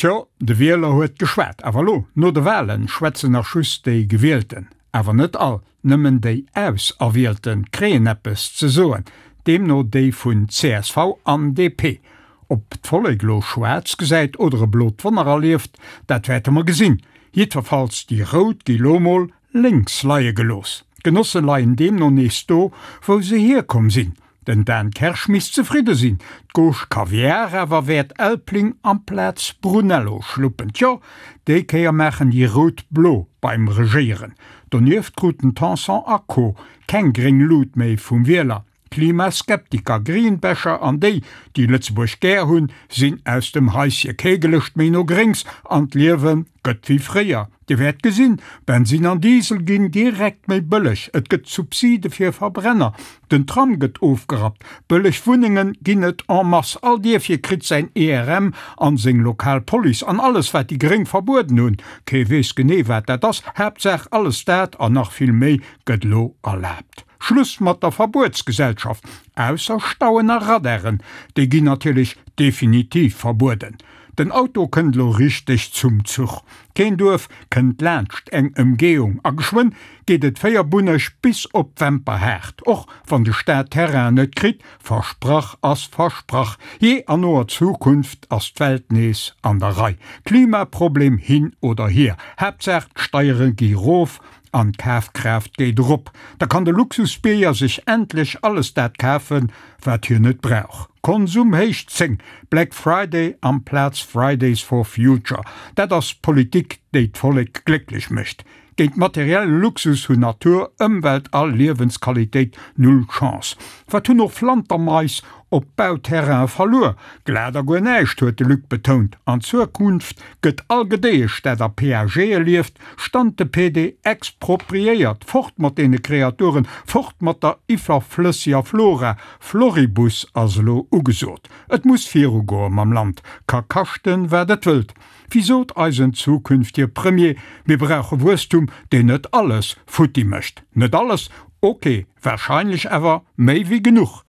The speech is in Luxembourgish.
Tjo, de Wieler huet geschwat. Awer elo, no de Walen, schwätzen nach just déi Gewielten. Awer net all, nëmmen déi Auserwielten kréien eppes ze soen, deemno déi vun csv an DP. Ob d'Vollek elo schwaarz gesäit oder e blot Wonner erlieft, dat wäerte mer gesinn. Jiddwerfalls, déi Rout gi lo mol lénks leie gelooss. D'Genosse leien deemno nees do, wou se hierkomm sinn. Den Dan Kersch misst zefridde sinn, d'Gauche Kaviar awer wäert Elbling amplaz Brunello schluppen. Tjo, déi Kéier maachen déi Rout blo beim Regéieren. Donieft kruten Tanson a Co. Keng gréng Lut méi vum Wieler. Klimaskeptiker, Greenbasher an déi, déi Lëtzebuerg gär hunn, sinn aus dem Haisje. Kee Gelëscht méi no Gréngs an d'Liewe gëtt wéi fréier. Dir wäert gesinn, Bensin an Diesel ginn direkt méi bëlleg, et gëtt Subside fir Verbrenner, den Tram gëtt ofgerappt, bëlleg Wunnenge ginn et en masse, all Dierfche kritt säin ERM an seng lokal Police an alles wat déi Gréng verbueden hunn, kee weess genee wat dat ass, Haaptsaach alles dat an nach vill méi gëtt elo erlaabt. Schluss mat der Verbuetsgesellschaft, ausser Stauen a Radaren, déi ginn natierlech definitiv verbueden. Den Auto kënnt elo richteg zum Zuch. Keen Duerf kënnt laanscht eng Ëmgehung a geschwënn geet et véierbunneg bis op d'Wemperhaart. Och wann de Staat Terrain net kritt, versprach ass versprach, jee an noer Zukunft ass d'Welt nees an der Rei. Klimaproblem hin oder hier, Haaptsaach d'Steiere gi rof An d'Kafkraaft geet erop. Da kann de Luxusbierger sech endlech alles dat kafen, wat hien net brauch. Konsum héich 10, Black Friday amplaz Fridays for Future, dat ass Politik, déi d'Vollek glécklech mécht. Géint materielle Luxus hunn Natur, Ëmwelt a Liewensqualitéit null Chance. Wat hunn och Flantermais op Bauterraine verluer? Glat a guer näischt, huet de Luc betount. An Zukunft gëtt all Gedéiesch, dat a PAGe lieft, Stante pede expropriéiert! Fort mat deene Kreaturen, fort mat der iwwerflësseger Flora! Floribus ass elo ugesot. Et muss virugoe mam Land, ka kaschten, wat et wëllt. Wéi sot eisen zukünftege Premier, mir brauche Wuesstum, deen net alles futti mécht. Net alles, ok, warscheinlech awer méi wéi genuch.